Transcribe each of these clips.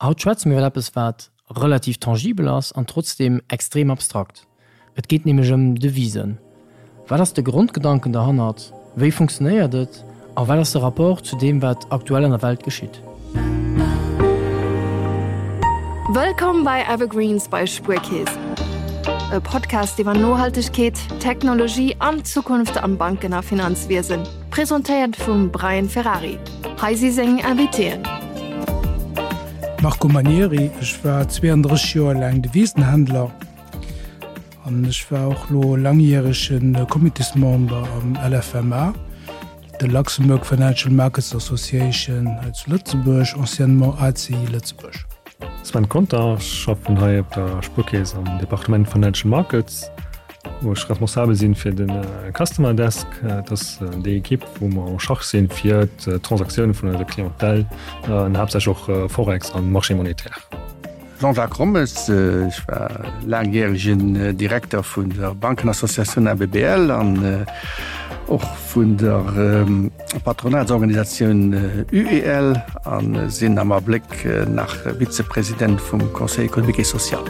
Haut schwätze mir iwwer eppes, wat relativ tangibel ass an trotzdeem extrem abstrakt. Et geet nämlech ëm Devisen. Wat ass de Grondgedanken derhannert? Wéi funktionéiert et? A wat ass de Rapport zu deem, wat aktuell an der Welt geschitt? Wëllkomm bei Evergreens bei Spuerkeess, e Podcast iwwer Nohaltegkeet, Technologie an d'Zukunft am Banken a Finanzwiesen. Presentéiert vum Brian Ferrari. Hei si seng Invitéen. Marco Manieri, Ech war 32 Joer laang Devisenhändler an ech war och lo langjärege Comitésmember am LFMA, de Luxembourg Financial Markets Association hei zu Lëtzebuerg, anciennement ACI Lëtzebuerg. Sven Conter, Ech schaffen hei op der Spuerkeess am Departement Financial Markets. wou ech responsabel sinn fir de Customer Desk. Dat ass déi Ekipp, wou mer en charge sinn fir d'Transaktioune vun eiser Clientèle, an haaptsächlech och Forex an Marché monétaire. Jean-Jacques Rommes, Ech war laangjäregen Direkter vun der Bankenassociatioun ABBL an och vun der Patronatsorganisatioun UEL a sinn am Abléck nach Vizepresident vum Conseil économique et social.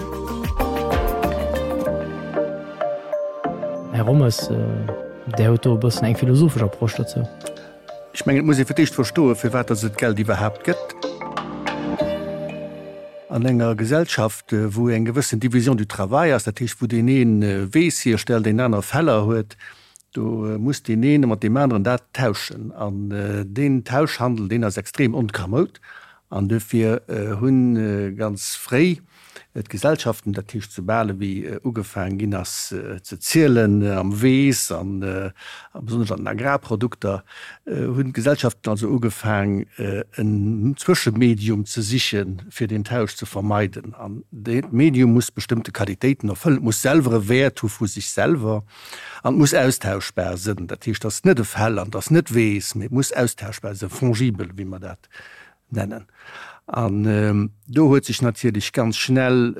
Här Rommes, Där hutt do e bëssen eng philosophesch Approche dozou. Ech mengen, et muss ee fir d'éischt verstoen, firwat datt et d'Geld iwwerhaapt gëtt. An enger Gesellschaft, wou eng gewëssen Division du travail ass, dat heescht, wou deen ee Weess hierstellt, deen aner Feller huet, do muss deen ee mat deem aneren dat tauschen. An deen Tauschhandel, deen ass extrem onkamoud. An dofir hu ganz fréi d'Gesellschaften, dat heescht soubal ewéi ugefaang ginn ass ze zielen am Weess an besonnesch an den Agrarprodukter, hunn d'Gesellschaften also ugefaang en Zwëschemedium ze sichen, fir deen Tausch ze vermeiden. An dat Medium muss bestëmmte Qualitéiten erfëllen, et muss selwer e Wäert hu vu sech selwer an et muss austauschbar sënn. Dat heescht, et ass net e Fell an et ass net Weess, mee et muss austauschbar sënn, fongibel, wéi mer dat nennen. An do huet sech natierlech ganz schnell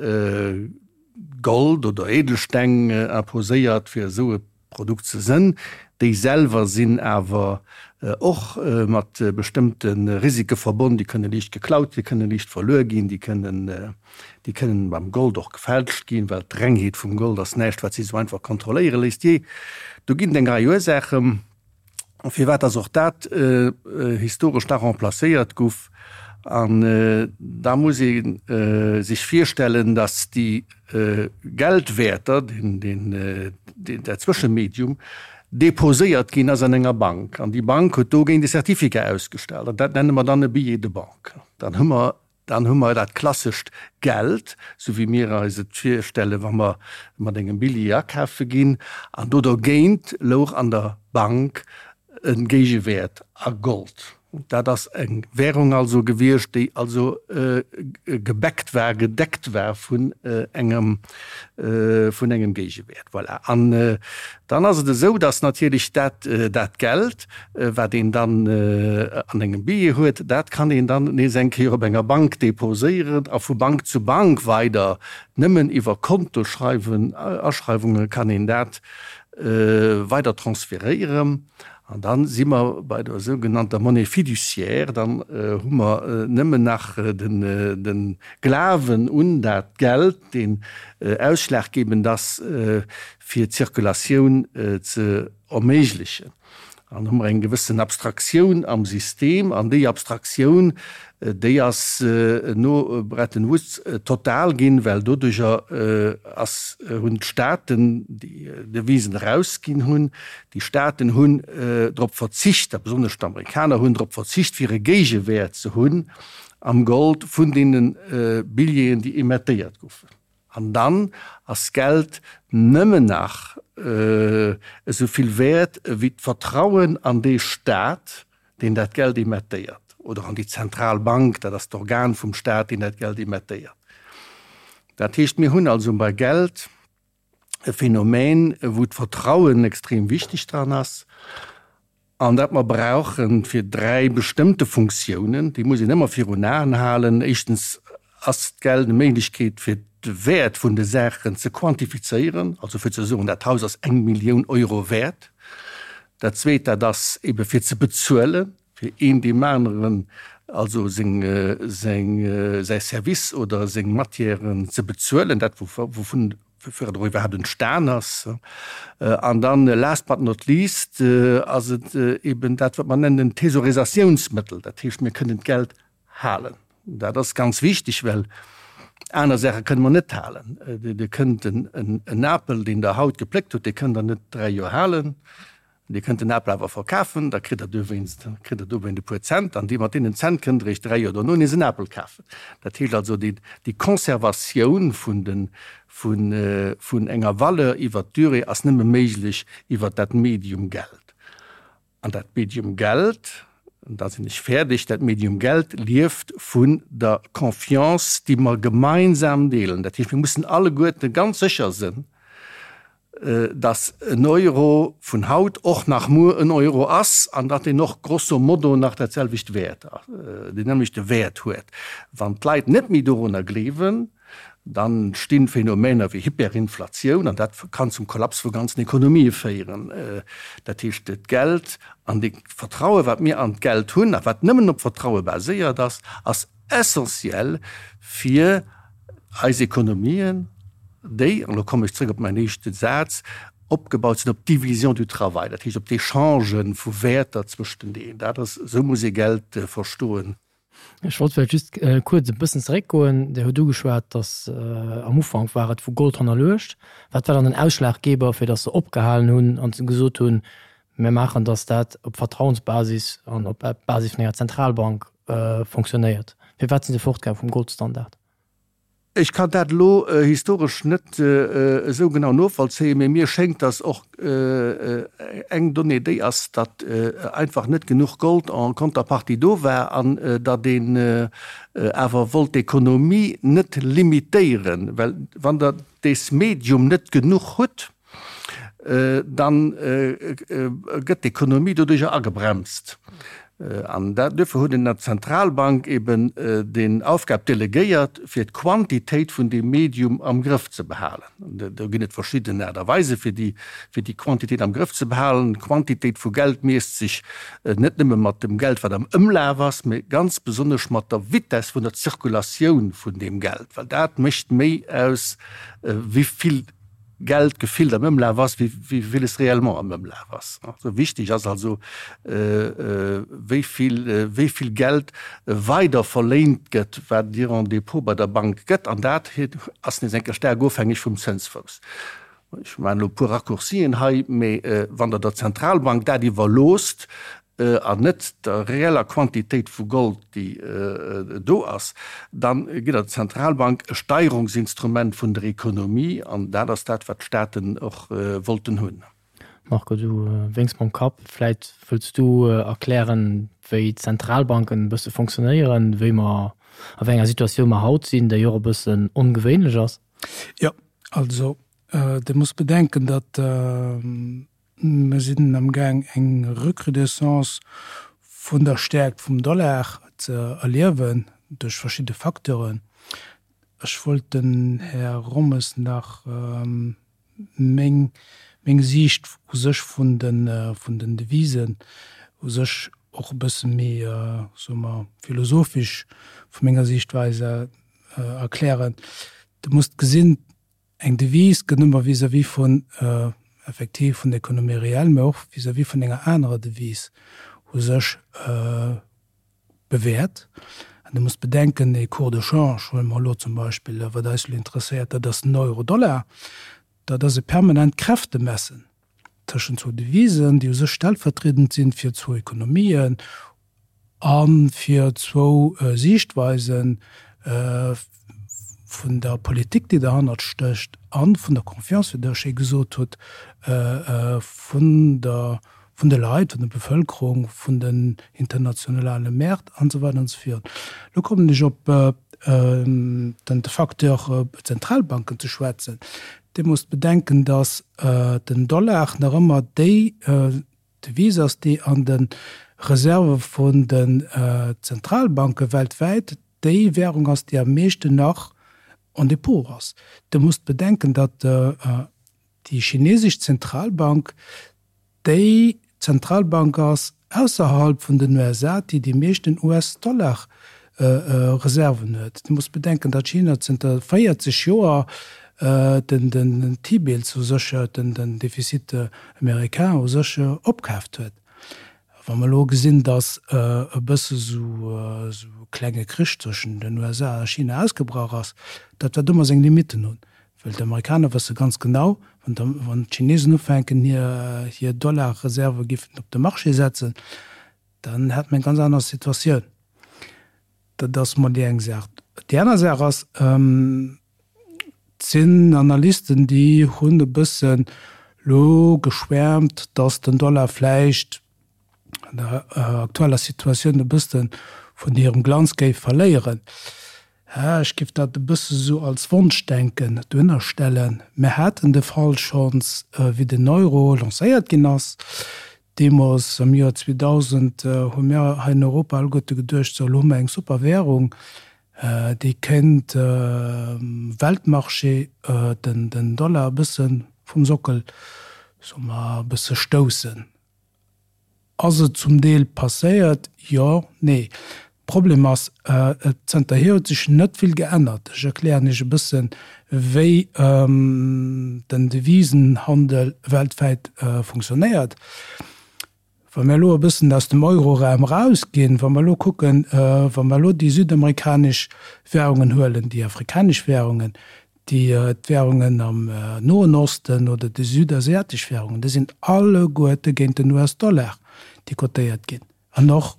Gold oder Edelsteng imposéiert, fir esou e Produkt ze sënn. Déi selwer sinn awer och mat bestëmmte Risike verbonn. Déi kënne liicht geklaut, déi kënne liicht verluer ginn, déi kënnen, déi kënnen beim Gold och gefälscht ginn, well d'Rengheet vum Gold ass näischt, wat sech esou einfach kontrolléiere léisst. Jee, do ginn et eng Rei Ursaachen. Firwat dass och dat historesch da remplacéiert guff. An da muss ee sech virstellen, dass déi Geldwäerter, dat Zwëschemedium, deposéiert ginn ass an enger Bank. An déi Bank huet dogéint e Certificat ausgestallt. An dat nenne mer dann e Billet de banque. Dann hu mer Dann hu mer dat klassescht Geld, sou wéi mir eis et virstellen, wa mer mat engem Billjee akafe ginn, an do dergéint louch an der Bank e Géigewäert a Gold. Dat ass eng Währung also gewiescht, déi also gebackt war, gedeckt war vun engem, vun engem Géigewäert. Voilà. An dann ass et esou, dass natierlech dat, dat Geld, Wat een dann an engem Billjee huet, dat kann een dann nees eng Kéier op enger Bank deposéieren a vu Bank zu Bank weider. Nëmmen iwwer Kontoschreiwen, Aschreiwunge kann een dat weider transferéieren. An da si mer bei der sougenannter Monnaie fiduciaire. Dann hu mer nëmmen nach de Glawen un dat Geld, deen ausschlaggebend ass, fir d'Zirkulatioun ze erméiglechen. An hu mer eng gewëssen Abstraktioun am System, an déi Abstraktioun, déi ass no Bretton Woods total ginn, well doduercher ass, hunn d'Staaten, déi Devisen erausginn hunn, déi Staaten hunn drop verzicht, a besonnesch d'Amerikaner hunn drop verzicht, fir e Géigewäert ze hunn am Gold vun deene Billjeeën, déi emettéiert goufen. An dann ass Geld nëmmen nach esou vill wäert ewéi d'Vertrauen an dee Staat, deen dat Geld emettéiert, oder an déi Zentralbank, dat ass d'Organ vum Staat, deen dat Geld emettéiert. Dat heescht, mir hunn also bei Geld e Phänomen, wou d'Vertrauen extrem wichteg dran ass an dat mer brauche fir 3 bestëmmte Funktiounen, déi muss een ëmmer virun Aen halen. Éischtens ass d'Geld eng Méiglechkeet fir de Wäert vun de Saachen ze quantifizéieren, also fir ze soen, dat Haus ass eng Millioun Euro wäert. Dat Zweet, dat ass ebe fir ze bezuelen. fir een deem aneren also seng, seng, säi Service oder seng Matièren ze bezuelen, dat wouvun woufir et och iwwerhaapt entstan ass. An dann, last but not least, ass et eben dat, wat mer nennen en Thesaurisatiounsmëttel. Dat heescht, mir kënnen d'Geld halen. Dat ass ganz wichteg, well aner Saache kënne mer net halen. Dir kënnt en Apel, deen Der haut gepléckt hutt, dee kënnt Der net dräi Joer halen. Dir kënnt den Apel awer verkafen, da kritt Der dowéinst, kritt Der dowéint e puer Cent, an déi, mat deenen Cent kënnt Der Iech 3 Joer dono nees en Apel kafen. Dat heescht also, déi, déi Conservatioun vun den, vun, vun enger Valeur iwwert d'Durée ass nëmme méiglech iwwert dat Medium Geld. An dat Medium Geld, an da sinn ech fäerdeg, dat Medium Geld lieft vun der Confiance, déi mer gemeinsam deelen. Dat heescht, mir mussen alleguerte ganz sécher sënn, datt en Euro vun haut och nach muer en Euro ass an datt deen och grosso modo nach dat selwecht Wäert, deen nämmlechte Wäert huet. Wann d'Leit net méi dorunner gleewen, dann entstinn Phänomener wéi Hyperinflatioun an dat kann zum Kollaps vu ganzen Ekonomië féieren. Dat heescht, d'Geld an dee Vertraue wat mir an d'Geld hunn a wat nëmmen op Vertraue baséiert ass, ass essentiell fir eis Ekonomien, déi, an elo kommen ech zrëck op mäin éischte Saz, opgebaut sinn op d'Division du travail, dat heescht op d'Echange vu Wäerter zwëschteneen. Dat ass, esou muss ee Geld verstoen. Ech wollt vläicht just kuerz e bëssen zeréckgoen. Dir hutt ugeschwat, datt am Ufank war et vu Gold hannerluecht. Wat war dann den Ausschlaggeber, fir datt se opgehalen hunn an gesot hunn, Mir maachen, datt dat op Vertrauensbasis an op Basis vun enger Zentralbank fonctionnéiert. Firwat si se fortgaang vum Goldstandard? Ech kann dat elo historesch net esou genau novollzéien, mee mir schéngt, datt och eng Donnée déi ass, datt einfach net genuch Gold en contrepartie do war an datt een awer wollt d'Ekonomie net limitéieren, well wann Der dees Medium net genuch hutt, dann gëtt d'Ekonomie doduercher agebremst. An duerfir huet een der Zentralbank eben den Aufgab delegéiert, fir d'Quantitéit vun deem Medium am Grëff ze behalen. Do ginn et verschidden Aart a Weise fir déi, fir déi Quantitéit am Grëff ze behalen. D'Quantitéit vu Geld miesst sech net nëmme mat dem Geld, wat am Ëmlaf ass, mee ganz besonnesch mat der Vitess vun der Zirkulatioun vun deem Geld, well dat mécht méi aus, wéi vill Geld gefillt am Ëmlaf ass, wéi villes réellement am Ëmlaf ass. Wichteg ass also, wéi vill, wéi vill Geld weider verléint gëtt, wat Dir en Dépôt bei der Bank gëtt. An dat ass nees eng Kéier staark ofhängeg vum Zënsfouss. Ech maachen elo e puer Raccourcien hei, mee wann Der der Zentralbank dat iwwerloosst, an net der reeller Quantitéit vu Gold, déi do ass, da gitt Der der Zentralbank e Steierungsinstrument vun der Ekonomie, an dat ass dat, wat d'Staaten och wollten hunn. Marco, du wénks mam Kapp. Vläit wëlls du erklären, wéi d'Zentralbanken e bësse fonctionnéieren, wéi mer, a wéi enger Situatioun mer haut sinn, déi och e bëssen ongewéinlech ass. Jo, also Dir musst bedenken, datt Mer sinn amgaang eng Recrudescence vun der Stäerkt vum Dollar ze erliewen duerch verschidde Facteuren. Ech wollt dem Här Rommes nach meng meng Siicht u sech vun de vun den Devisen u sech och e bësse méi, soe mer, philosophisch vu menger Siichtweis erklären. Dir musst gesinn, Eng Devise gëtt ëmmer vis-à-vis vun, effektiv vun der Économie réelle, mä och vis-à-vis vun enger anerer Devise u sech bewäert. An Dir musst bedenken, ee Cours de change, huele mer elo zum Beispill, wat eis elo interesséiert, dat ass den Euro-Dollar, dat ass e permanent Kräftemessen tëschent zwou Devisen, déi u sech stellvertriedend sinn fir zwou Ekonomien a fir zwou Siichtweise vun der Politik, déi derhannert stécht, a vun der Confiance, wéi Der schéi gesot hutt, vun der, vun de Leit, vun der Bevëlkerung, vun den internationale Mäert an esou weider an esou virun. Elo kommen ech op den Facteur Zentralbanken ze schwätzen. Dir musst bedenken, datt den Dollar nach ëmmer déi Devise ass, déi an de Reserve vun den Zentralbanke weltwäit déi Währung ass, déi am meeschten nach en Dépôt ass. Dir musst bedenken, datt déi chinesesch Zentralbank déi Zentralbank ass, ausserhalb vun den USA, déi déi meeschten US-Dollar-Reserven huet. Dir musst bedenken, datt China zënter 40 Joer den T-Bills u sech, den Déficit américain u sech opkaaft huet. Wa mer elo gesinn, datt e bësse sou e klenge Krich zwëschen den USA a China ausgebrach ass, dat wäert ëmmer seng Limitten hunn, well d'Amerikaner wësse ganz genau, wann d'Chinesen ufänken hir Dollarreserve giffen op de Marché setzen, dann hätte mer eng ganz aner Situatioun. Dat ass mol déi eng Saach. Déi aner Saach ass, et sinn Analysten, déi hunn e bëssen elo geschwäermt, datt den Dollar vläicht an der aktueller Situatioun e bësse vun hirem Glanz géif verléieren. Ech géif dat e bësse sou als Wonschdenken dohinner stellen. Mir haten de Fall schonns, wéi den Euro lancéiert ginn ass. Deemools am Joer 2000 hu mir hei in Europa alleguerte geduecht, sou elo hu mer eng super Währung, déi kéint um Weltmarché den Dollar e bësse vum Sockel, soe mer, e bësse stoussen. Ass et zum Deel passéiert? Jo, nee. Problem ass, zënterhier huet sech net vill geännert. Ech erklären Iech e bëssen, wéi den Devisenhandel weltwäit funktionéiert. Wa mir elo e bëssen aus dem Euroraum erausginn, wa mer elo kucken, wa mer elo déi südamerikanesch Währungen huelen, déi afrikanesch Währungen, déi d'Währungen am Noen Osten oder déi südasiatesch Währungen, déi sinn alleguerte géint den US-Dollar, déi cotéiert ginn. An och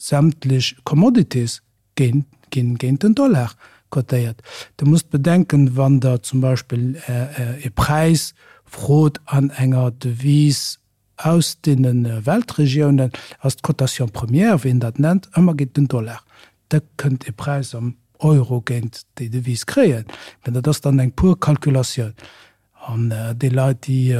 Sämtlech Commodities ginn géint den Dollar cotéiert. Der musst bedenken, wann Der zum Beispill e Präis frot an enger Devise aus deene Weltregiounen, ass d'Cotation première, wéi een dat nennt, ëmmer géint den Dollar. Der kënnt e Präis am Euro géint déi Devise kréien, mä dat ass dann eng pur Calculatioun. An déi Leit, déi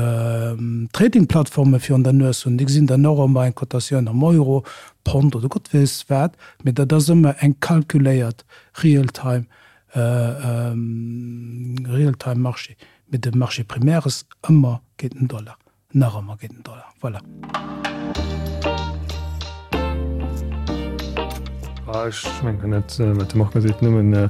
Trading-Plattforme virun der Nues hunn, déi gesinn dann och ëmmer eng Cotatioun am Euro, Pond oder Gott weess wat, mee dat ass ëmmer eng calculéiert Real-time, Real-time-Marché. Mee de Marché primaire ass ëmmer géint den Dollar. Nach ëmmer géint den Dollar, voilà. Ech mengen, kann dat, wat de Marco seet, nëmmen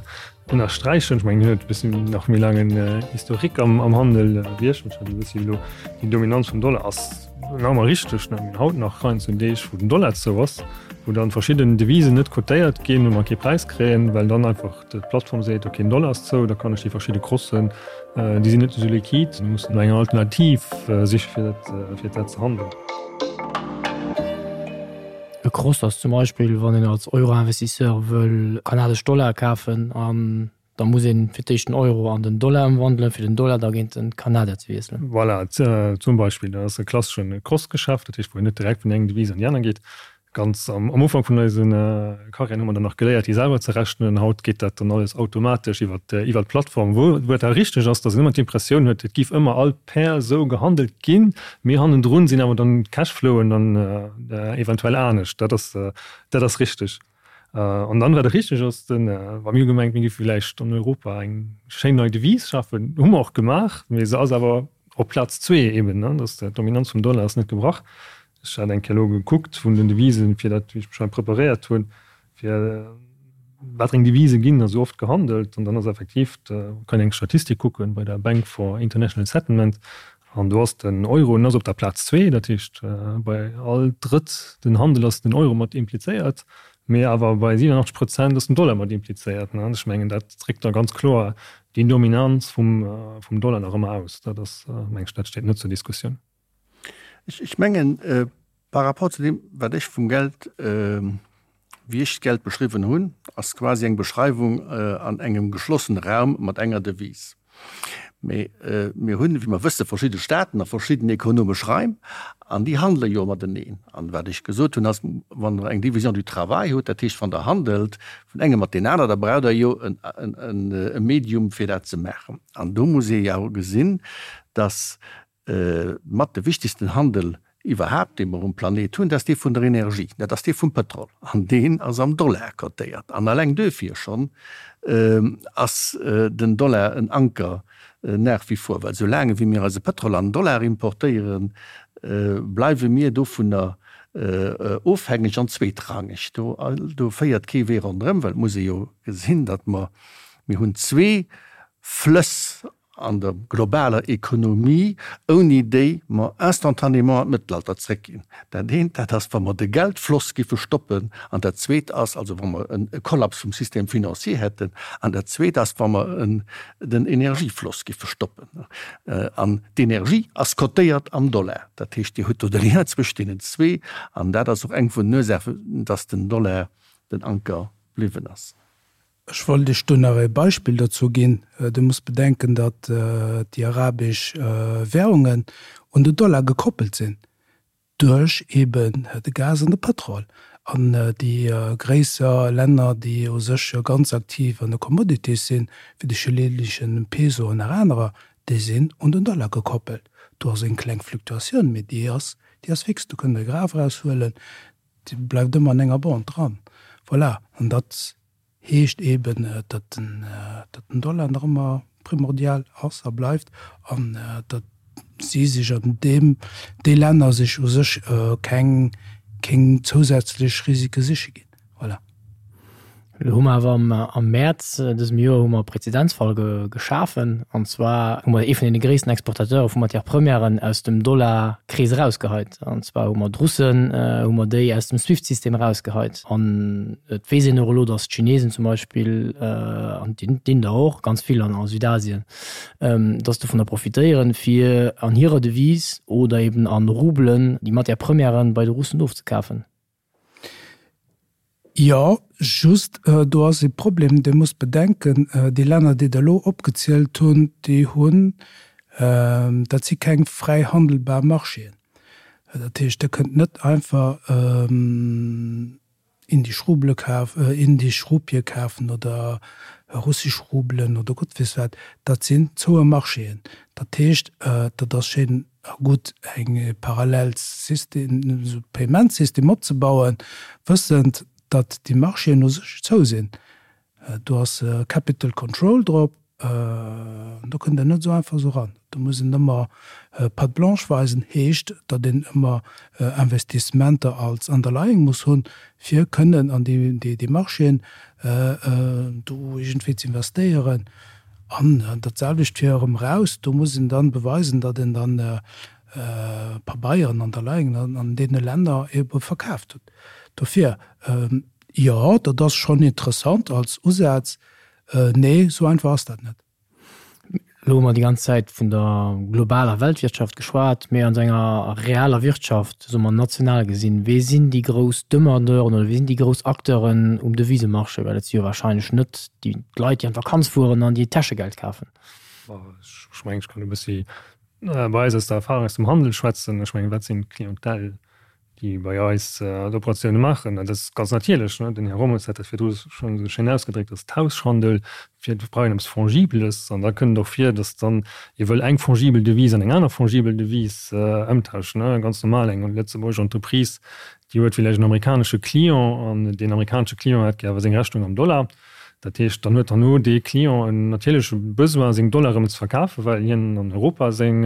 ënnersträichen. Ech mengen, hien huet e bëssen nach méi laangen Historique am, am Handel wéi ech. Ech hat e bëssi elo déi Dominanz vum Dollar ass nach ëmmer richteg. Mir hunn haut nach heiansdo Deeg, wou den Dollar zou ass, wou dann verschidden Devisen net cotéiert ginn, wou mer kee Präis kréien, well dann einfach D'Plattform seet, ok, den Dollar ass zou, da kann ech déi verschidde Crossen, déi sinn net esou liquid, mir mussen no enger Alternativ siche fir dat, fir dat ze handeln. E Cross ass zum Beispill, wann een als Euro-Investisseur wëll kanadesch Dollar kafen an da muss een fir d'éischt den Euro an den Dollar ëmwandelen, fir den Dollar da géint den Kanadier ze wiesselen. Voilà, zum Beispill, dat ass e klasseschen Cross-Geschäft, dat heescht, wou een net direkt vun engem Devise an déi aner geet. Ganz am Ufank vun eise Karriären hu mer dann nach geléiert, déi selwer ze rechnen. Haut geet dat dann alles automatesch iwwer d'Plattform, wou et awer richteg ass, datt een ëmmer d'Impressioun huet, et giff ëmmer all Pair esou gehandelt ginn, mee hannendrun sinn awer dann d'Cashflowen dann eventuell anescht. Dat ass, dat ass richteg. An dann, wat och richteg ass, de wa mir hu gemengt, mir giffe villäicht an Europa eng schéin nei Devise schafen, hu mer och gemaach, mee se ass awer op Plaz zwee eben, ne, datt d'Dominanz vum Dollar ass net gebrach. Ech hat eng Kéier elo gekuckt vun den Devisen, fir dat, wéi ech mech hei preparéiert hunn, fir wat eng Devise ginn esou oft gehandelt. An dann ass effektiv, kann een eng Statistik kucken bei der Bank for International Settlement, an do ass den Euro, en ass op der Plaz zwee, dat heescht bei all drëtt den Handel ass den Euro mat implizéiert, mee awer bei 87 Prozent ass den Dollar mat implizéiert. An ech mengen, dat dréckt da ganz kloer déi Dominanz vum Dollar nach ëmmer aus. Dat ass, meng ech, dat steet net zur Diskussioun. Ech mengen, par rapport zu deem, wat ech vum Geld, wéi ech d'Geld beschriwwen hunn, ass quasi eng Beschreiwung an engem geschlossene Raum mat enger Devise. Mee mir hunn, wéi mer wëssen, verschidde Staaten a verschidden ekonomesch Raim an déi handele jo mateneen. An wat ech gesot hunn, ass, wann Der eng Division du travail hutt, dat heescht, wann Der handelt vun engem mat deen aner, da braucht Der jo e Medium, fir dat ze maachen. An do muss ee jo gesinn, dass Mat de wichtegsten Handel iwwerhaapt, dee mer um Planet hunn, dat ass dee vun der Energie, dat ass dee vum Pëtrol. An deen ass am Dollar cotéiert. An alleng duerfir schonn ass den Dollar en Anker nach wie vor, well soulaang ewéi mir eise Pëtrol an Dollar importéieren, bleiwe mir dovunner. Ofhängeg an zweetrangeg. Do, do féiert kee Wee ronderëm, well et muss ee jo gesinn, datt mer, mir hunn zwee Flëss an der globaler Ekonomie, ouni déi mer instantanément an d'Mëttelalter zréckginn. Dat eent, dat ass, wa mer de Geldfloss giffe stoppen, an dat zweet ass, also wa mer e Kollaps vum Système financier hätten, an dat zweet ass, wa mer den Energiefloss giffe stoppen. An d'Energie ass cotéiert am Dollar. Dat heescht, Dir hutt do de Lien zwëscht deenen zwee, an dat ass och eng vun den Ursaachen, dass den Dollar den Anker bliwwen ass. Ech wollt Iech do nach e Beispill dozou ginn. Dir musst bedenken, datt déi arabesch Währungen un de Dollar gekoppelt sinn duerch eben de Gas an de Pëtrol. An déi gréisser Länner, déi u sech jo ganz aktiv an de Commodities sinn, wéi de chilenische Peso an nach anerer, déi sinn un den Dollar gekoppelt. Do ass eng kleng Fluktuatioun, mee déi ass, déi ass fix. Do kënnt Der e Graph eraushuelen, déi bleift ëmmer an enger Bande dran. Voilà. An dat heescht eben, datt den Dollar nach ëmmer primordial ass a bleift an datt si sech an deem, déi Länner sech u sech keng, keng zousätzlech Risike siche ginn. Voilà. Elo hu mer awer am Mäerz dësem Joer hu mer e Prezedenzfall geschafen, an zwar hu mer ee vun deene gréissten Exportateure vu Matière-premièren aus dem Dollarkrees erausgeheit. An zwar hu mer d'Russen, hu mer déi aus dem Swift-System erausgeheit. An et weess een och elo, datt d'Chinesen zum Beispill, an d'Inder och, ganz vill an a Südasien, datt dovunner profitéieren, fir an hirer Devise oder eben a Rubelen déi Matière-premièren bei de Russen ofzekafen. Jo, just do ass ee Problem, Dir musst bedenken, déi Länner, déi Der elo opgezielt hunn, déi hunn, dat si keng fräi handelbar Marchéen. Dat heescht, Der kënnt net einfach indisch Rubele kaf, indisch Rupie kafen oder russisch Rubelen oder Gott weess wat. Dat sinn zoue Marchéen. Dat heescht, dat ass schéin a gutt eng parallel System, esou Payment-System opzebauen, wëssend, datt déi Marchéen u sech zou sinn. Do ass Capital Control drop, do kënnt een net esou einfach esou eran. Do muss een ëmmer Patte blanche weisen, heescht, datt een ëmmer Investissementer als Underlying muss hunn, fir kënnen an déi Marchéen do iergendwéi ze investéieren. An dat selwecht fir erëm eraus, do muss een dann beweisen, datt een dann Pabeieren, Underlyingen an deene Länner ebe verkaaft huet. Dofir, jo, dat ass schonn interessant als Usaz. Nee, esou einfach ass dat net. Elo hu mer déi ganz Zäit vun der globaler Weltwirtschaft geschwat, mee an enger realer Wirtschaft, soe mer national gesinn, wee sinn déi grouss Demandeuren oder wee sinn déi grouss Acteuren um Devisemarché? Well et si jo wahrscheinlech net déi d'Leit, déi an d'Vakanz fueren an déi Täschegeld kafen. Ech mengen, ech kann e bëssi bei eis aus der Erfahrung aus dem Handel schwätzen. Ech mengen, wat sinn d'Clientèle, déi bei eis d'Operatioune maachen? Dat ass ganz natierlech, den Här Rommes hat dat virdru schonn esou schéin ausgedréckt, dass Tauschhandel fir brauch een eppes Fongibeles. An da kënnt et och vir, dass dann ee wëll eng fongibel Devise an eng aner fongibel Devise ëmtauschen. Ganz normal, eng lëtzebuergesch Entreprise, déi huet villäicht en amerikanesche Client an deen amerikanesche Client hätt gär awer seng Rechnung am Dollar. Dat heescht, dann huet herno dee Client en natierleche Besoin, seng Dollar erëm ze verkafen, well hien an Europa seng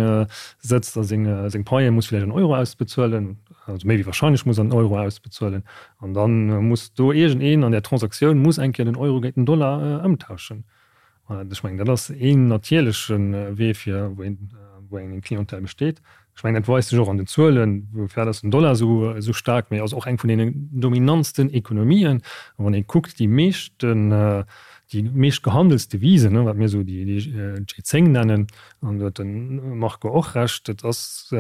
sëtzt a seng seng Paie muss villäicht an Euro ausbezuelen, also méi wéi wahrscheinlech muss an Euro ausbezuelen. An da muss do iergendeen an där Transaktioun muss eng Kéier den Euro géint den Dollar ëmtauschen. Ech mengen, dat ass een natierleche Wee fir wou een wou eng Clientèle besteet. Ech mengen, dat weist sech och an den Zuelen, woufir ass den Dollar esou esou staark, mee ass och eng vun deenen dominantsten Ekonomien. A wann ee kuckt, déi meeschten, déi meescht gehandelst Devisen, wat mir esou déi G10 nennen, an do huet de Marco och Recht, dat ass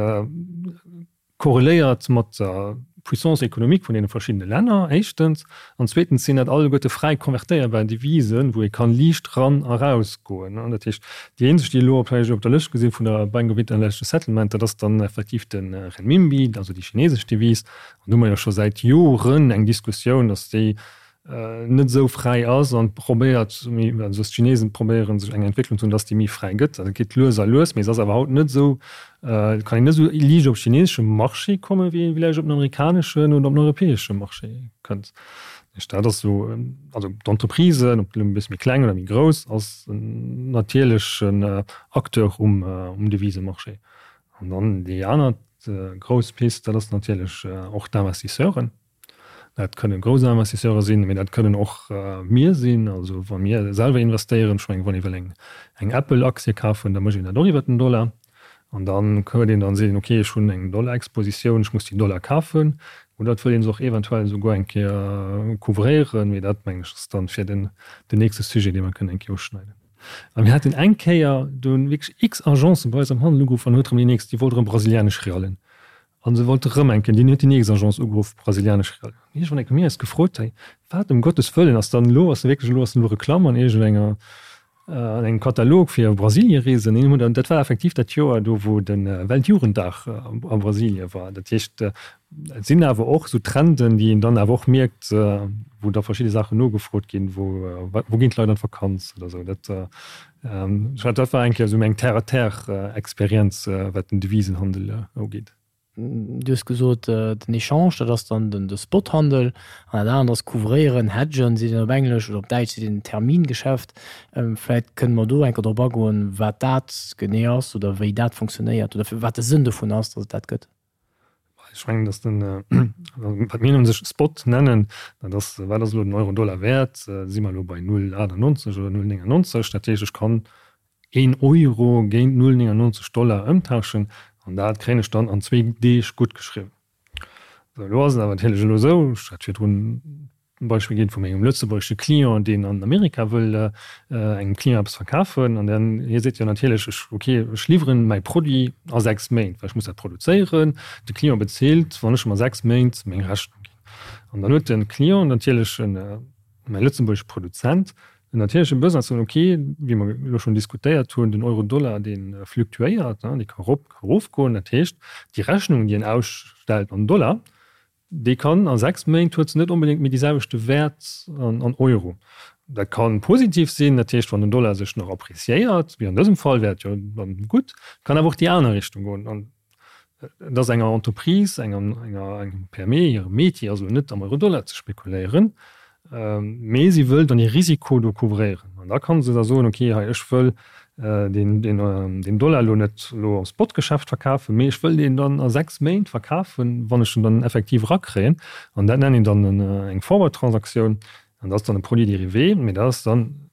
korreléiert mat der Puissance économique vun deene verschiddene Länner, éischtens, an zweetens sinn dat alleguerte fräi konvertéierbar Devisen, wou ee kann liicht ran a raus goen. Dat heescht, déi eenzeg, déi elo vläicht op der Lëscht gesinn vun der Bank of International Settlement, dat ass dann effektiv de Renminbi, also déi chinesesch Devise. An do hu mer jo scho säit Joren eng Diskussioun, datt déi net esou fräi ass an probéiert, also dass d'Chinesen probéieren sech eng Entwécklung ze hunn, dass déi méi fräi gëtt. Dat geet lues a lues, mee se ass awer haut net esou, kann een net esou liicht op chineseschem Marché kommen, wéi ee villäicht op den amerikaneschen oder op den europäesche Marché kënnt. Dat ass esou, also d'Entreprisen, ob elo e bësse méi kleng oder méi grouss, ass en natierlechen Acteur um Devisemarché. An dann déi aner. nächst grouss Pist, dat ass natierlech och d'Investisseuren. Dat kënne grouss Investisseure sinn, mee dat kënnen och mir sinn. Also wa mir selwer investéieren, ech mengen, wann ee wëll eng eng Apple-Aktie kafen, da mécht een dat och iwwer den Dollar. An dann huet een dann, seet een, okay, ech hunn eng Dollar-Expositioun, ech muss déi Dollar kafen. Oder et wëll ee se och eventuell esouguer eng Kéier couvréieren, mee dat, mengen ech, ass dann fir den den nächste Sujet, dee mer kënnen eng Kéier uschneiden. A mir haten eng Kéier, do hunn wierklech x Agencen bei eis am Handel ugeruff an huet erëm déi nächst, déi wollt erëm brasilianesch Realen. An se wollte rëm eng Kéier, deen huet déi nächst Agence ugeruff, brasilianesch Real. An iergendwann eng Kéier hu mir eis gefrot, hey, wat ëm Gottes Wëllen ass dann elo, ass wierklech elo, ass elo Reklamm an iergendenger, an engem Katalog fir Brasiliereesen? An hunn dat war effektiv dat Joer do, wou de Weltjugenddag a Brasilie war. Dat heescht, et sinn awer och esou Trenden, déi een dann awer och mierkt, wou da verschidde Saachen nogefrot ginn, wou, wou ginn d'Leit an d'Vakanz oder esou. Dat, Dat war eng Kéier esou meng Terre-à-terre-Experienz, wat den Devisenhandel ugeet. Du hues gesot, den Echange, dat ass dann de Spothandel, an dat anert ass couvréieren, hedgen seet een op Englesch, oder op Däitsch seet een Termingeschäft. Vläicht kënne mer do eng Kéier drop agoen, wat dat genee ass oder wéi dat funktionéiert oder wat de Sënn dovun ass, datt et dat gëtt. Ech mengen, datt den, wat mir un sech Spot nennen, dat ass, wat ass elo den Euro-Dollar wäert? Si mer elo bei 0,98 oder 0,99? Dat heescht, ech kann een Euro géint 0,99 Dollar ëmtauschen an dat kréien ech dann an zwee Deeg guttgeschriwwen. Sou, elo ass et awer natierlech elo esou, ech hat virdrun e Beispill ginn vu mengem lëtzebuergesche Client, deen an Amerika wëll engem Client eppes verkafen an dann hie seet jo natierlech, ech, ok, ech liwweren mäi Produit a 6 Méint, well ech muss dat produzéieren, de Client bezilt, wann ech em a 6 Méint meng Rechnung ginn. An dann huet de Client natierlech en, mäi lëtzebuergesche Produzent, en natierleche Besoin ze soen, ok, wéi mer elo schonn diskutéiert hunn, den Euro-Dollar, dee fluktuéiert, dee ka erop, ka erofgoen, dat heescht, déi Rechnung, déi en ausstellt an Dollar, Déi kann a 6 Méint huet se net onbedéngt méi dee selwechte Wäert an Euro. Dat ka positiv sinn, dat heescht wann den Dollar sech nach appreciéiert, wéi an dësem Fall, wär et jo dann gutt. Kann awer och déi aner Richtung goen. An et ass enger Entreprise, enger engem PME hire Métier ass elo net am Euro-Dollar ze spekuléieren. Mee si wëll dann hir Risiko do couvréieren. An da kann se da soen, okay, hei ech wëll deen Dollar elo net elo am Spotgeschäft verkafen, mee ech wëll deen dann a 6 Méint verkafen, wann ech en dann effektiv erakréien. An dat nennen een dann eng Forward-Transaktioun. An dat ass dann e Produit dérivé, mee dat ass dann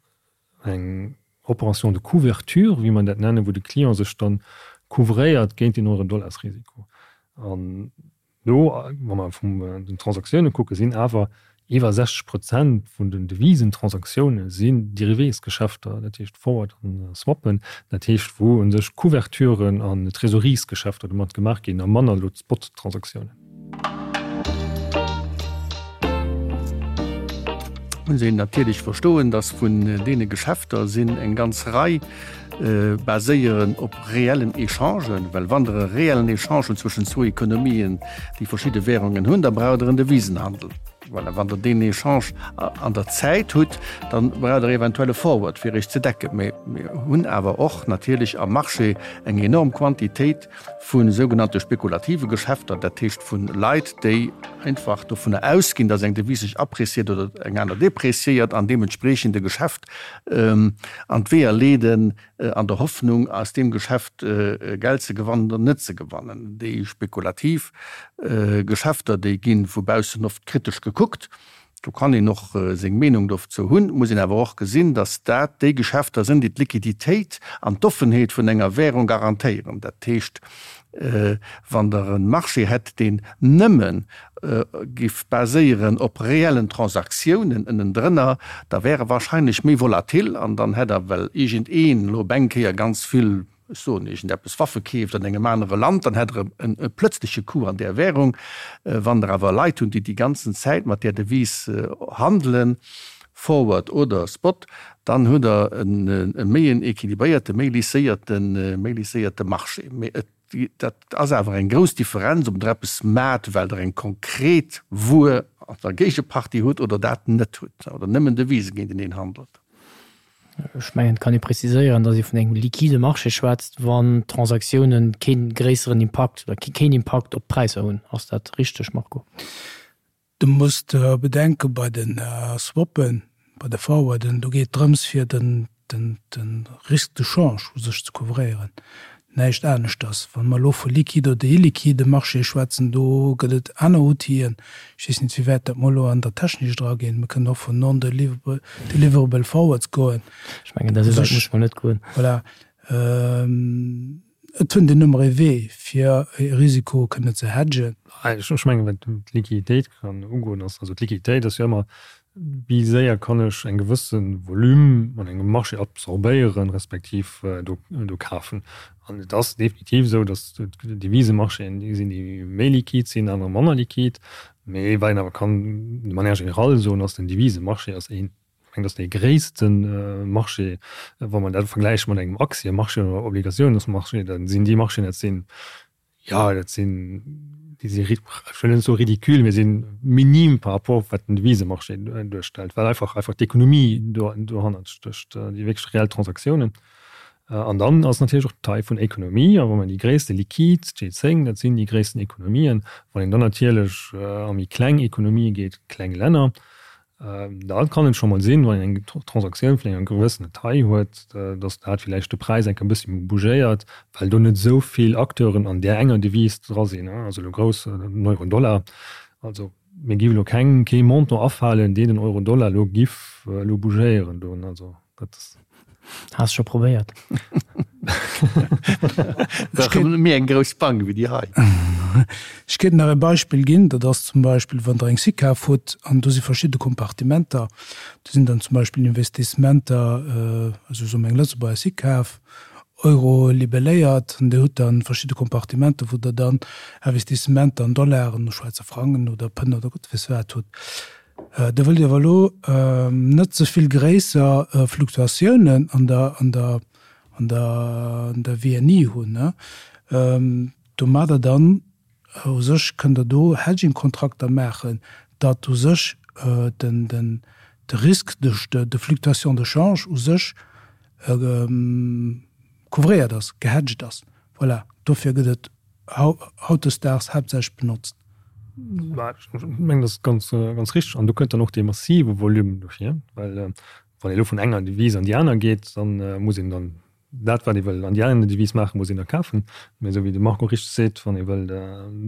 eng Opération de couverture, wéi mer dat nennen, wou de Client sech dann couvréiert géint den Euro-Dollars-Risiko. An Do, wa mer vun den Transaktioune kucken, sinn awer iwwer 60 Prozent vun den Devisentransaktiounen sinn Dérivésgeschäfter, dat heescht Forward an Swappen, dat heescht wou u sech Couverturen an Trésoreries-Geschäfter domat gemaach ginn a manner elo d'Spot-Transaktiounen. Muss een natierlech verstoen, dass vun deene Geschäfter sinn eng ganz Rei, baséieren op reellen Echangen, well wann Der e reellen Echange hutt zwëschen zwou Ekonomien, déi verschidde Währungen hunn, da braucht Der en Devisenhandel. Voilà, wann Der deen Echange an der Zäit hutt, da braucht Der eventuell e Forward, fir Iech ze decken. Mee mir hunn awer och natierlech am Marché eng enorm Quantitéit vu sougenannte spekulative Geschäfter, dat heescht vu Leit, déi einfach dovunner ausginn, datt eng Devise sech appréciiert oder eng aner dépréciiert an deementspreechend e Geschäft an d'Weeër leeden, an der Hoffnung, aus deem Geschäft Geld ze gewannen oder net ze gewannen. Déi spekulativ Geschäfter, déi gi vu baussen oft kritesch gekuckt. Do kann een och seng Meenung dozou hunn. Et muss een awer och gesinn, datt dat déi Geschäfter sinn, déi d'Liquiditéit an d'Offenheet vun enger Währung garantéieren. Dat heescht, wann Der e Marché hätt, deen nëmme géif baséieren op reellen Transaktiounen ënnendrënner, da wär e wahrscheinlech méi volatil an dann hätt Der, well iergendeen elo op eng Kéier ganz vill ech soen iergendeppes, Waffe keeft an engem anere Land, dann hätt Der e plötzleche Coup an där Währung. Wann Der awer Leit hunn, déi déi ganzen Zäit mat där Devise handelen, Forward oder Spot, dann hutt Der e méi en équilibréierte, méi lisséierte, méi lisséierte Marché. Mee et, dat ass awer eng grouss Differenz, ob Der eppes maacht, well Der eng konkret Wuer an der Géigepartie hutt oder dat net hutt oder nëmmen Devise géinteneen handelt. Ech mengen, et kann ee preziséieren, datt ee vun engem liquide Marché schwätzt, wann d'Transaktiounen kee gréisseren Impakt oder keen Impakt op d'Präisser hunn. Ass dat richteg, Marco? Du muss bedenken, bei de Swappen, bei de Forwarden, do geet et drëms fir den Risque de change u sech ze couvréieren. Näischt aneschters. Wa mer elo vu liquide oder illiquide Marchéë schwätzen, do gëtt et aner Outiller. Ech weess net, wéi wäit dat mer elo an der Technik draginn. Mir kënnen och vun non-deliverable forwards goen. Ech mengen, dat esou wäit muss mer net goen. Voilà. Et fënnt een ëmmer ee Wee, fir e Risiko kënnen ze hedgen. Ech mengen, wat d'Liquiditéit kann ugoen, ass, also d'Liquiditéit ass jo ëmmer, wéi séier kann ech eng gewësse Volume an engem Marché absorbéieren, respektiv do do kafen. An et ass definitiv esou, datt d'Devisemarchéen déi sinn, déi méi liquid sinn, aner manner liquid. Mee wat een awer kann de manière générale soen, ass, den Devisemarché ass een, ech mengen, dat ass dee gréisste Marché, wa mer dat vergläiche mat engem Aktiemarché oder Obligatiounsmarché, da sinn déi Marchéen, dat sinn Jo, dat sinn, déi si, ech wëll net soe ridicule, mee sinn minim par rapport wat den Devisemarché duerstellt, well einfach einfach d'Ekonomie do dohannert stécht, déi wierklech reell Transaktiounen. An dann ass natierlech och d'Taille vun Ekonomie, a wa mer déi gréisste liquid, d'G10, dat sinn déi gréissten Ekonomien, wann een dann natierlech a méi kleng Ekonomië geet, kleng Länner, Da kann et scho mol sinn, wann een eng Transaktioun vun enger gewëssener Taille huet, datt dat villäicht de Präis eng Kéier e bëssi bougéiert, well do net esou vill Acteuren an där enger Devise dra sinn, also elo grouss, den Euro-Dollar. Also mir géif elo keng, kee Montant afalen, deen den Euro-Dollar elo giff elo bougéieren do. Also dat ass. Has scho probéiert? Ech méi eng grouss Bank wéi déi hei. Ech kéint nach e Beispill ginn, dat ass zum Beispill, wann Der eng SICAV hutt an do si verschidde Kompartimenter, do sinn dann zum Beispill Investissementer, also soe mer eng Lëtzebuerger SICAV, Euro libelléiert, an Dir hutt dann verschidde Kompartimenter, wou Der dann Investissementer an Dollaren, Schwäizer Frangen oder Pënn oder Gott weess wat hutt. Der wëllt awer elo net ze vill gréisser Fluktuatiounen an der, an der, an der, an der WNI hunn. Domadder dann u sech kënnt Der do Hedging-Kontrakter maachen, datt u sech den, den, de Risque de, de fluctuation de change u sech couvréiert ass, gehedged ass. Voilà, dofir gëtt et hautdesdaags haaptsächlech benotzt. Ech mengen, dat ass ganz, ganz richteg. An do kënnt dann och dee massive Volume dohier, well wann ee elo vun enger Devise an déi aner geet, da muss een dann dat, wat ee wëll an déi aner Devise maachen, muss een da kafen. Mä esou wéi de Marco richteg seet, wann ee wëll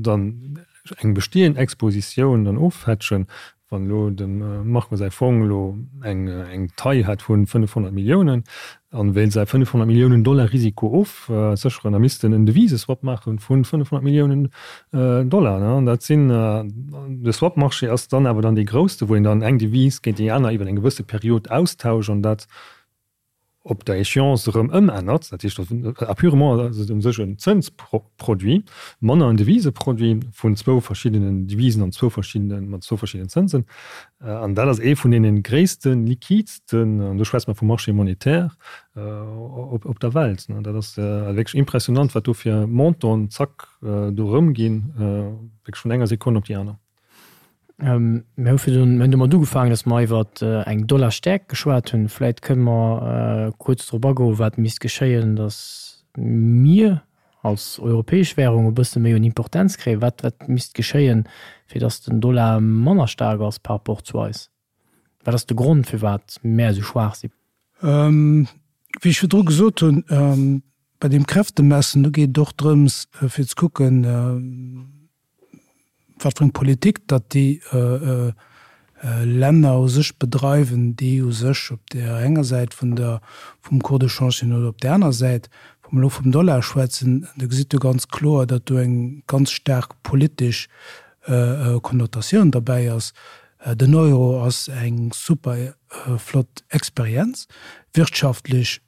dann eng bestehend Expositioun dann ofhedgen, Wann elo dem Marco säi Fong elo eng eng Taille hätt vun 500 Milliounen an wéilt säi 500 Milliounen Dollar Risiko ofsécheren, da misst en en Deviseswap maachen vun 500 Milliounen Dollar. An dat sinn, de Swap-Marché ass dann awer dann dee grousste, wou een dann eng Devise géint déi aner iwwer eng gewësse Period austauscht an dat op der Échéance erëm ëmännert, dat heescht a purement ass et u sech en Zënsproduit, manner en Deviseproduit vun zwou verschiddenen Devisen an zwou verschiddenen, mat zwou verschiddenen Zënsen. An dat ass ee vun deene gréissten, liquidsten, an do schwätze mer vum Marché monétaire, op op der Welt. Dat ass wierklech impressionant, wat do fir Montanten zack do erëmginn, wierklech vun enger Sekonn op déi aner. Mir hu virdrun, mir hunn domat ugefaangen, datt mer iwwer eng Dollarstäerkt geschwat hunn. Vläit kënne mer kuerz drop agoen, wat misst geschéien, datt mir als europäesch Währung e bësse méi un Importenz kréien. Wat, wat misst geschéien, fir datt den Dollar manner staark ass par rapport zu eis? Wat ass de Grond, firwat mär esou schwaach sinn? Wéi ech virdru gesot hunn, bei deem Kräftemessen, do geet et och drëms, fir ze kucken, wat fir eng Politik datt déi Länner u sech bedreiwen, déi u sech op där enger Säit vun der, vum Cours de change sinn oder op där aner Säit. Wa mer elo vum Dollar schwätzen, da gesitt Der ganz kloer, datt do eng ganz staark politesch Konnotatioun derbäi ass. Den Euro ass eng super flott Experienz, wirtschaftlech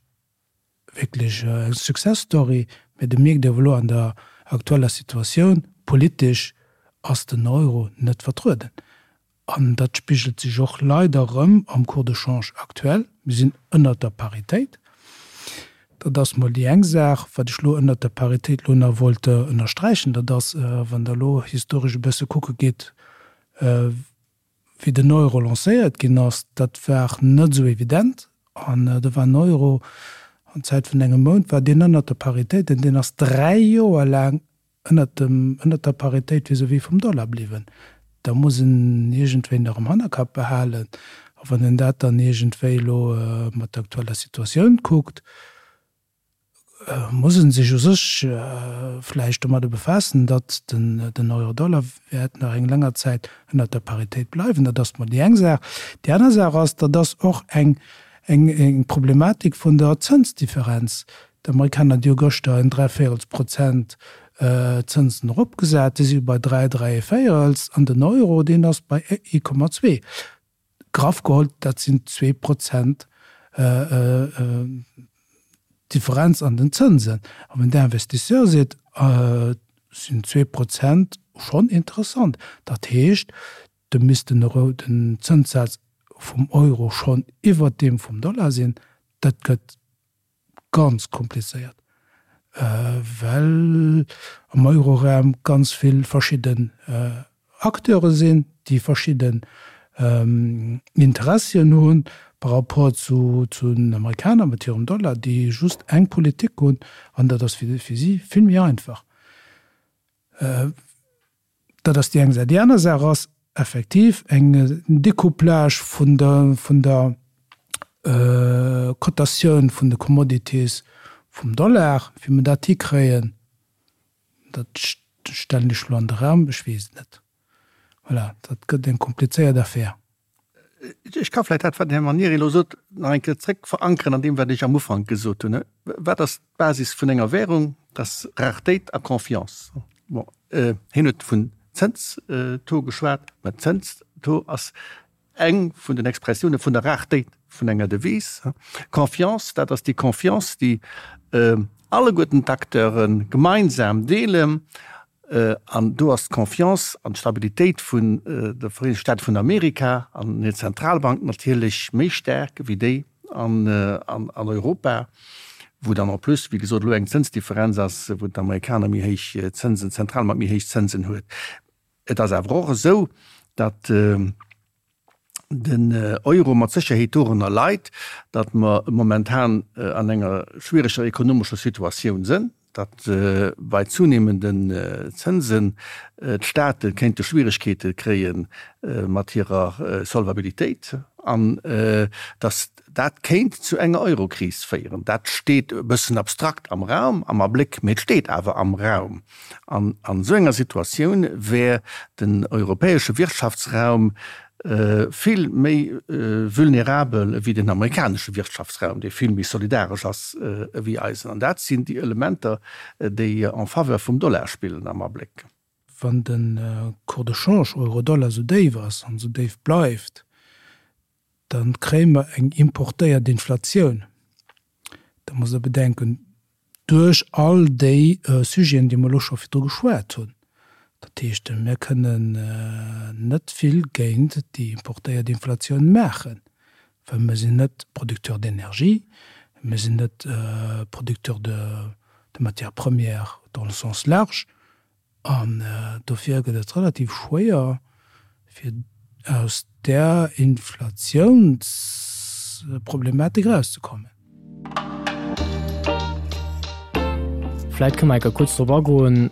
wierklech eng Success Story, mä do mierkt ee awer elo an der aktueller Situatioun, politesch ass den Euro net vertrueden. An dat spigelt sech och leider erëm am Cours de change aktuell. Mir sinn ënnert der Paritéit. Dat ass mol déi eng Saach. Wat ech elo ënnert der Paritéit elo nach wollt ënnersträichen, dat ass, wann Der elo historesch e bësse kucke gitt, Wéi den Euro lancéiert ginn ass, dat war net esou evident. An do war den Euro an Zäit vun engem Mount war deen ënnert der Paritéit an deen ass 3 Joer laang ënnert dem, ënnert der Paritéit vis-à-vis vum Dollar bliwwen. Da muss en iergendwéi nach am Hannerkapp behalen. A wann een dat dann iergendwéi elo mat der aktueller Situatioun kuckt, muss e sech u sech vläicht domadder befaassen, datt den Euro-Dollar wäert nach eng länger Zäit ënnert der Paritéit bleiwen. Dat ass mol déi eng Saach. Déi aner Saach ass, dat ass och eng Problematik vun der Zënsdifferenz. D'Amerikaner, déi hu gëschter en dräivéierels Prozent Zënsen eropgesat, déi si bei 3, dräivéierels, an den Euro, deen ass bei 1,2. Graff geholl, dat sinn 2 Prozent Differenz an den Zënsen. A wann den Investisseur seet, sinn 2 Prozent schonn interessant, dat heescht, da misst den Euro, den Zënssaz vum Euro schonn iwwert deem vum Dollar sinn. Dat gëtt ganz komplizéiert, well am Euroraum ganz vill verschidden Acteure sinn, déi verschidden Interessien hu par rapport zu den Amerikaner mat hirem Dollar, déi just eng Politik hunn, an dat ass fir si vill méi einfach. Dat ass déi eng Saach. Déi aner Saach ass effektiv eng Découplage vun der, vun der Cotatioun vun de Commodities vum Dollar. Wéi mer dat hikréien, dat stellen ech elo an de Raum, ech weess et net. Voilà, dat gëtt eng komplizéiert Affär. Ech ka vläicht dat, wat den Här Manieri elo sot, nach eng Kéier zréck verankeren an deem, wat ech am Ufank gesot hunn. Wat ass d'Basis vun enger Währung? Dat ass Raretéit a Confiance. Bon, hien huet vun Zënstaux geschwat, mä Zënstaux ass eng vun den Expressioune vun der Raretéit vun enger Devise. Confiance, dat ass déi Confiance, déi alleguerten d'Acteure gemeinsam deelen. An do ass d'Confiance an d'Stabilitéit vun de Vereenegte Staate vun Amerika an hir Zentralbank natierlech méi staark wéi déi an Europa, wou dann en plus, wéi gesot, elo eng Zënsdifferenz ass, wou d'Amerikaner méi héich Zënsen, d'Zentralbank méi héich Zënsen huet. Et ass awer och esou, datt den Euro mat Sécherheet dorënner leit, datt mer momentan an enger schwiereger ekonomescher Situatioun sënn, datt bei zunehmenden Zënsen d'Staate kéinte Schwieregkeete kréie mat hirer Solvabilitéit an datt dat kéint zu enger Eurokris féieren. Dat steet e bëssen abstrakt am Raum, am Abléck, mee et steet awer am Raum. An an esou enger Situatioun wär den europäesche Wirtschaftsraum vill méi vulnerabel ewéi den amerikanesche Wirtschaftsraum, dee vill méi solidaresch ass ewéi eisen. An dat sinn déi Elementer, déi en faveur vum Dollar spillen am Abléck. Wann de Cours de change Euro-Dollar esou déif ass an esou déif bleift, da kréie mer eng importéiert Inflatioun. Da musst Der bedenken, duerch all déi Sujeten, déi mer elo scho virdru geschwat hunn. Dat heescht, mir kënnen net vill géint déi importéiert Inflatioun maachen, well mir sinn net Producteur d'énergie, mir sinn net Producteur de matières premières dans le sens large. An dofir gëtt et relativ schwéier, fir aus där Inflatiounsproblematik erauszekommen. Vläit kënne mer enker kuerz drop agoen,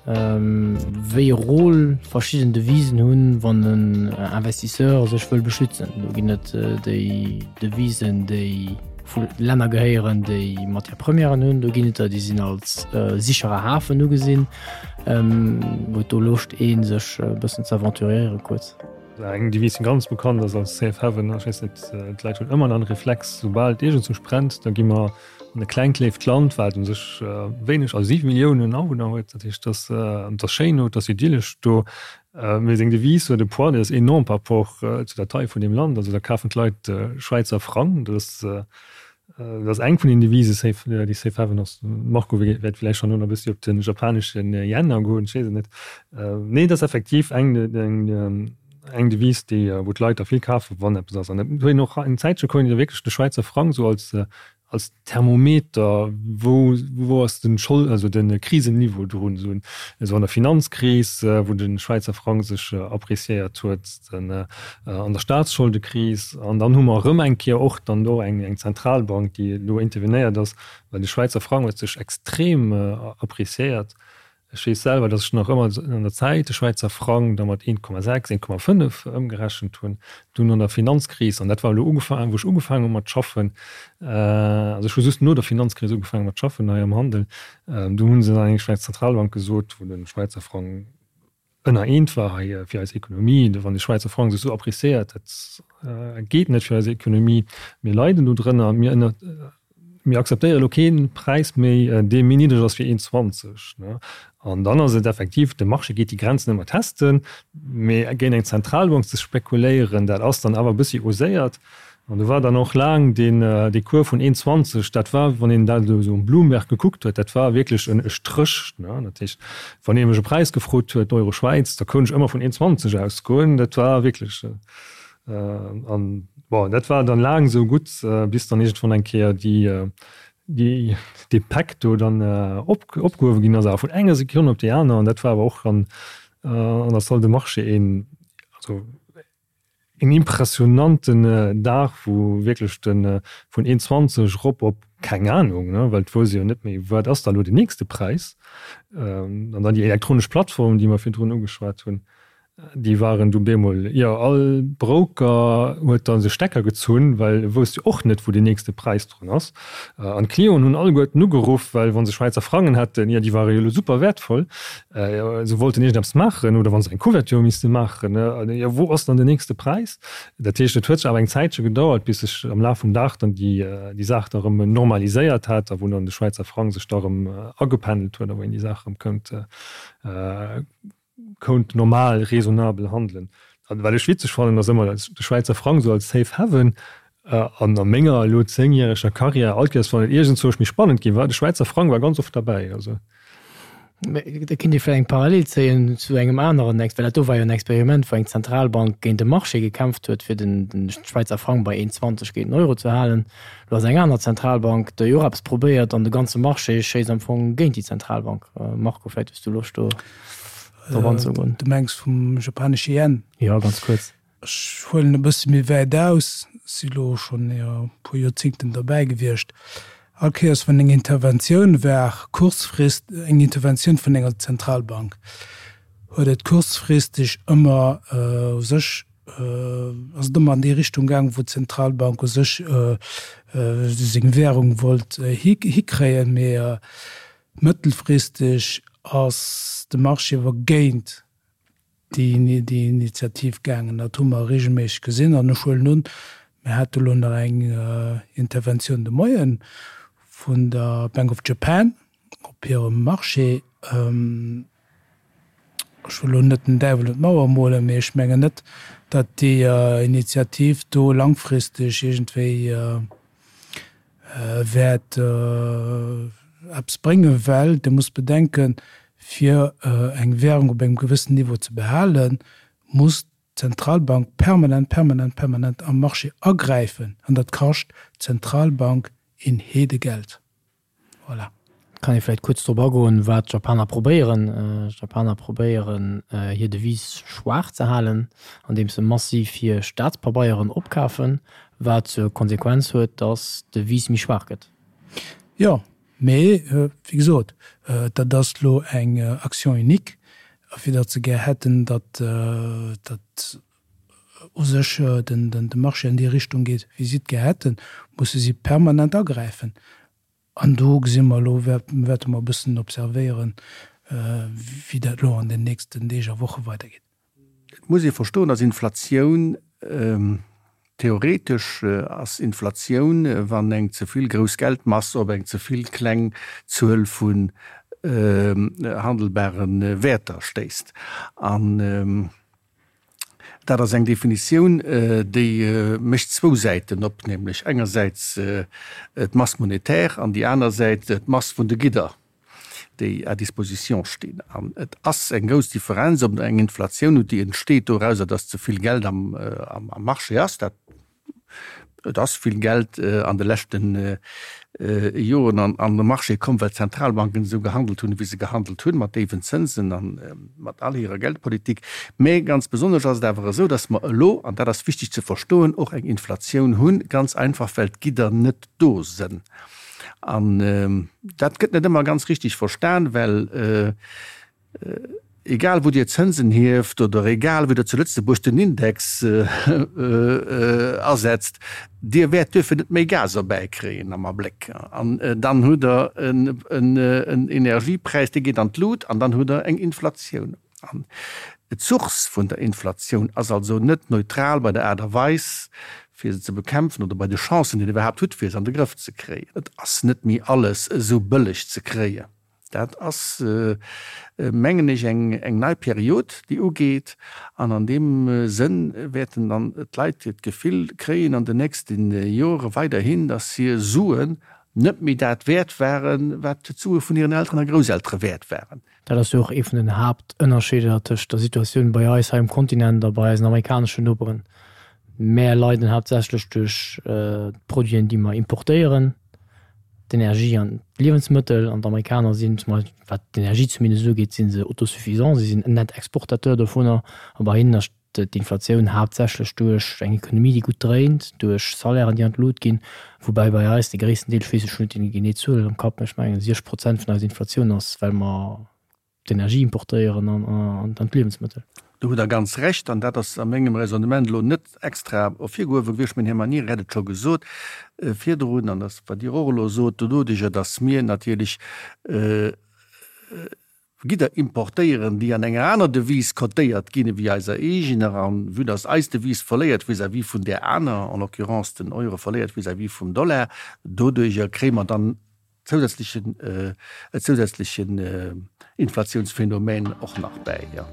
wéi e Rôle verschidden Devisen hunn, wann en Investisseur sech wëll beschützen. Do ginn et déi Devisen, déi vu Länner gehéieren, déi Matière-premièren hunn. Do ginn et der, déi sinn als sicherer Hafen ugesinn. Huet do Loscht een sech e bëssen ze aventuréieren kuerz? Eng Devise déi ganz bekannt ass als Safe Haven, ech weess net, d'Leit hunn ëmmer nach en Reflex, soubal et iergendzwousch brennt, da gi mer an e klengt léift Land, wat u sech wéineg, also 7 Milliounen Awunner huet, dat heescht, et ass schéin do, et ass idyllesch do, mee seng Devise huet e Poids, dee ass enorm par rapport zu der Taille vun deem Land. Also da kafen d'Leit Schwäizer Frang, dat ass Dat ass eng vun den Devisen, Safe, déi Safe Haven ass. Marco wäert villäicht schonn elo nach e bëssi op de japanesche Yen agoen, ech weess et net. Nee, et ass effektiv eng, eng, eng Devise, déi, wou d'Leit da vill kafen, wann eppes ass. An et huet een och eng Zäitche konnt een da wierklech de Schwäizer Frang esou als, als Thermometer, wou, wou ass den Schold, also de Krisenniveau drun, esou, esou an der Finanzkris, wou de Schwäizer Frang sech appreciéiert huet. Den an der Staatsscholdekris an dann hu mer erëm eng Kéier och dann do eng eng Zentralbank, déi elo intervenéiert ass, well de Schwäizer Frang huet sech extrem appreciéiert. Ech weess selwer, datt ech nach ëmmer an der Zäit de Schwäizer Frang da mat 1,6, 1,5 ëmgerechent hunn. Dunn an der Finanzkris, an dat war elo ugefaangen, wou ech ugefaangen hu mat schaffen, also ech hu just no der Finanzkris ugefaangen mat schaffen hei am Handel, do hu se dann eng Schwäiz Zentralbank gesot, wou de Schwäizer Frang ënner eent war hei fir eis Ekonomie, wann de Schwäizer Frang sech esou appréciéiert, dat geet net fir eis Ekonomie, mir leiden do drënner, mir ënner, mir akzeptéiere elo kee Präis méi, dee méi niddreg ass wéi 1,20. An dann ass et effektiv, de Marché geet déi Grenzen ëmmer testen, mee géint eng Zentralbank ze spekuléieren, dat ass dann awer e bëssi oséiert. An do war dann och laang deen, dee Cours vun 1,20, dat war, wann een dat elo esou um Bloomberg gekuckt huet, dat war wierklech en e Stréch. Dat heescht, wann ee mech e Präis gefrot huet, Euro Schwäiz, da koun ech ëmmer vun 1,20 ausgoen. Dat war wierklech, an bon, dat war dann laang esou gutt, bis dann iergendwann eng Kéier déi, déi, dee Päck do dann op, opgehuewe ginn ass, awer vun enger Sekonn op déi aner. An dat war awer och an, an der Salle de marché een, also Een impressionanten Dag, wou wierklech de vun 1,20 erop op keng Anung, ne, well et wousst ee jo net méi, wat ass da elo den nächste Präis. An dann déi elektronesch Plattform, déi mer virdrun ugeschwat hunn, déi waren du bemol, jo, all Broker huet da sech Stecker gezunn, well e wousst jo och net, wou den nächste Präis drun ass. An d'Clienten hunn alleguerten ugeruff, well wa se Schwäizer Frangen hätten, jo, déi ware jo elo super wäertvoll. Se wollten iergendeppes maachen oder wa se eng Couverture misste maachen, jo wou ass dann den nächste Präis? Dat heescht, et huet sech awer eng Zäitche gedauert, bis sech am Laf vum Dag dann déi Saach da erëm normaliséiert hat a wou dann de Schwäizer Frang sech da erëm agependelt huet a wou een déi Saach erëm kënnt kount normal, raisonnabel handelen. An wat ech witzeg fannen, ass ëmmer de Schwäizer Frang esou als Safe Haven. An a menger elo zéngjäreger Karriär, all Kéiers wann et iergendzwousch méi spannend gi war, de Schwäizer Frang war ganz oft derbäi. Also. Mä da kinnt ee vläicht eng Parallel zéien zu engem aneren Ex, well dat do war jo en Experiment, wou eng Zentralbank géint de Marché gekämpft huet, fir den Schwäizer Frang bei 1,20 géint den Euro ze halen. Elo ass eng aner Zentralbank, déi och eppes probéiert an de ganze Marché schéisst am Fong géint déi Zentralbank. Marco, vläicht hues du Loscht do drop anzegoen. Du mengs vum japanesche Yen? Jo, ganz kuerz. Ech huelen e bësse méi wäit aus, si lo schonn e puer Joerzingten derbäi gewiescht. All Kéiers wann eng Interventioun war, kurzfrist eng Interventioun vun enger Zentralbank, huet et kurzfristeg ëmmer u sech, ass et ëmmer an déi Richtung gaang, wou d'Zentralbank u sech seng Währung wollt hikréien. Mee mëttelfristeg ass de Marché awer géint déi Initiativ gaangen. Dat hu mer regelméisseg gesinn. An ech huelen un, mir hate elo nach eng Interventioun de Moie vun der Bank of Japan op hirem Marché. Ech wëll elo net den Däiwel un d'Mauer molen, mee ech mengen net, datt déi Initiativ do langfristeg iergendwéi wäert eppes bréngen, well Dir musst bedenken, fir eng Währung op engem gewëssen Niveau ze behalen, muss d'Zentralbank permanent, permanent, permanent am Marché agräifen an dat kascht d'Zentralbank een Heedegeld. Voilà. Kann ee vläicht kuerz drop agoen, wat d'Japaner probéieren. D'Japaner probéieren, hir Devise schwaach ze halen, andeems se massiv hir Staatspabeieren opkafen, wat zur Konsequenz huet, datt d'Devise méi schwaach gëtt. Jo, mee wéi gesot, dat ass elo eng Action unique, a fir datt se gär hätten, datt dat u sech de Marché an déi Richtung geet, wéi si et gär hätten, musse si permanent agräifen. An do gesi mer elo, wäerte mer e bëssen observéieren, wéi dat elo an den nächsten Deeg a Woche weidergeet. Et muss ee verstoen, dass Inflatioun, theoretesch ass Inflatioun, wann eng ze vill grouss Geldmass op eng ze vill kleng Zuel vun handelbare Wäerter stéisst. An Dat ass eng Definitioun, déi mécht zwou Säiten op, nämlech engersäits d'Masse monétaire an déi aner Säit d'Mass vun de Gidder, déi à disposition stinn. An et ass eng grouss Differenz, ob eng Inflatioun hutt, déi entsteet dorauser, datt ze vill Geld am Marché ass, dat Et ass vill Geld an de leschte Joren an de Marché komm, well d'Zentralbanken esou gehandelt hunn, wéi se gehandelt hunn, mat déiwen Zënsen a mat all hirer Geldpolitik. Mä ganz besonnesch ass et awer esou, datt mer elo, an dat ass wichteg ze verstoen, och eng Inflatioun hunn, ganz einfach well d'Gidder net do sënn. An dat gëtt net ëmmer ganz richtig verstan, well. Egal wou Dir Zënsen hieft oder egal wéi Der zu Lëtzebuerg den Index asetzt, Dir wäert duerfir net méi Gas erbäikréien am Abléck. An dann hutt Der en Energiepräis, dee geet an d'Lut an dann hutt Der eng Inflatioun. An d'Source vun der Inflatioun ass also net neutral bei der Aart a Weis, fir se ze bekämpfen oder bei de Chancen, déi Der iwwerhaapt hutt, fir se an de Grëff ze kréien. Et ass net méi alles esou bëlleg ze kréien. Dat ass, mengen ech, eng nei Period, déi ugeet. An an deem Sënn wäerten dann d'Leit d'Gefill kréien an den nächste Jore weiderhin, dass hir Suen net méi dat wäert waren, wat d'Sue vun hiren Elteren a Grousseltere wäert waren. Dat ass jo och ee vun den Haaptënnerscheeder tëscht der Situatioun bei eis hei um Kontinent a bei eisen amerikaneschen Noperen. Mär leiden haaptsächlech duerch d'Produiten, déi mer importéieren. d'Energie an d'Liewensmëttel, an d'Amerikaner sinn, zum Beispill wat d'Energie zumindest ugeet, si se autosuffisant, si sinn en net Exportateur dovunner, a bei hinnen ass d'Inflatioun haaptsächlech duerch eng Ekonomie, déi gutt dréint, duerch Salairen, déi an d'Lut ginn, woubäi bei eis de gréissten Deel, ech weess ech hunn net déi genee Zuel am Kapp, mä ech mengen 60 Prozent vun eiser Inflatioun ass, well mer d'Energie importéieren an d'Liewensmëttel. Do hutt Der ganz Recht, an dat ass a mengem Raisonnement elo net extra ervirgehuewe gewiescht, mä den Här Manieri hat et scho gesot virdrun, an dat wat Dir och elo sot, doduerjer datt mir natierlech Gidder importéieren, déi an enger aner Devise cotéiert ginn ewéi eiser eegener, an vue datt eis Devise verléiert vis-à-vis vun där aner, en l'occurrence den Euro verléiert vis-à-vis vum Dollar, doduerjer kréie mer dann zousätzlechen, e zousätzlechen Inflatiounsphänomen och nach bäi, jo.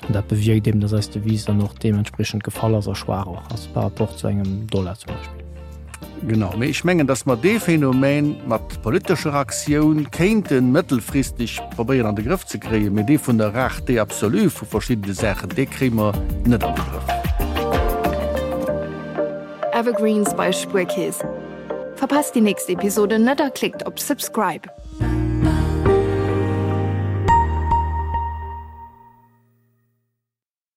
An dat bewierkt eben, dass eis Devise dann och deementspriechend gefall ass a schwaach och ass par rapport zu engem Dollar zum Beispill. Genau, mee ech mengen, dass mer dee Phänomen mat politescher Aktioun kéinte mëttelfristeg probéieren an de Grëff ze kréien, mee dee vun der Rareté absolue vu verschiddene Saachen, dee kréie mer net an de Grëff. Evergreens bei Spuerkeess. Verpasst déi nächst Episode net a klickt op Subscribe.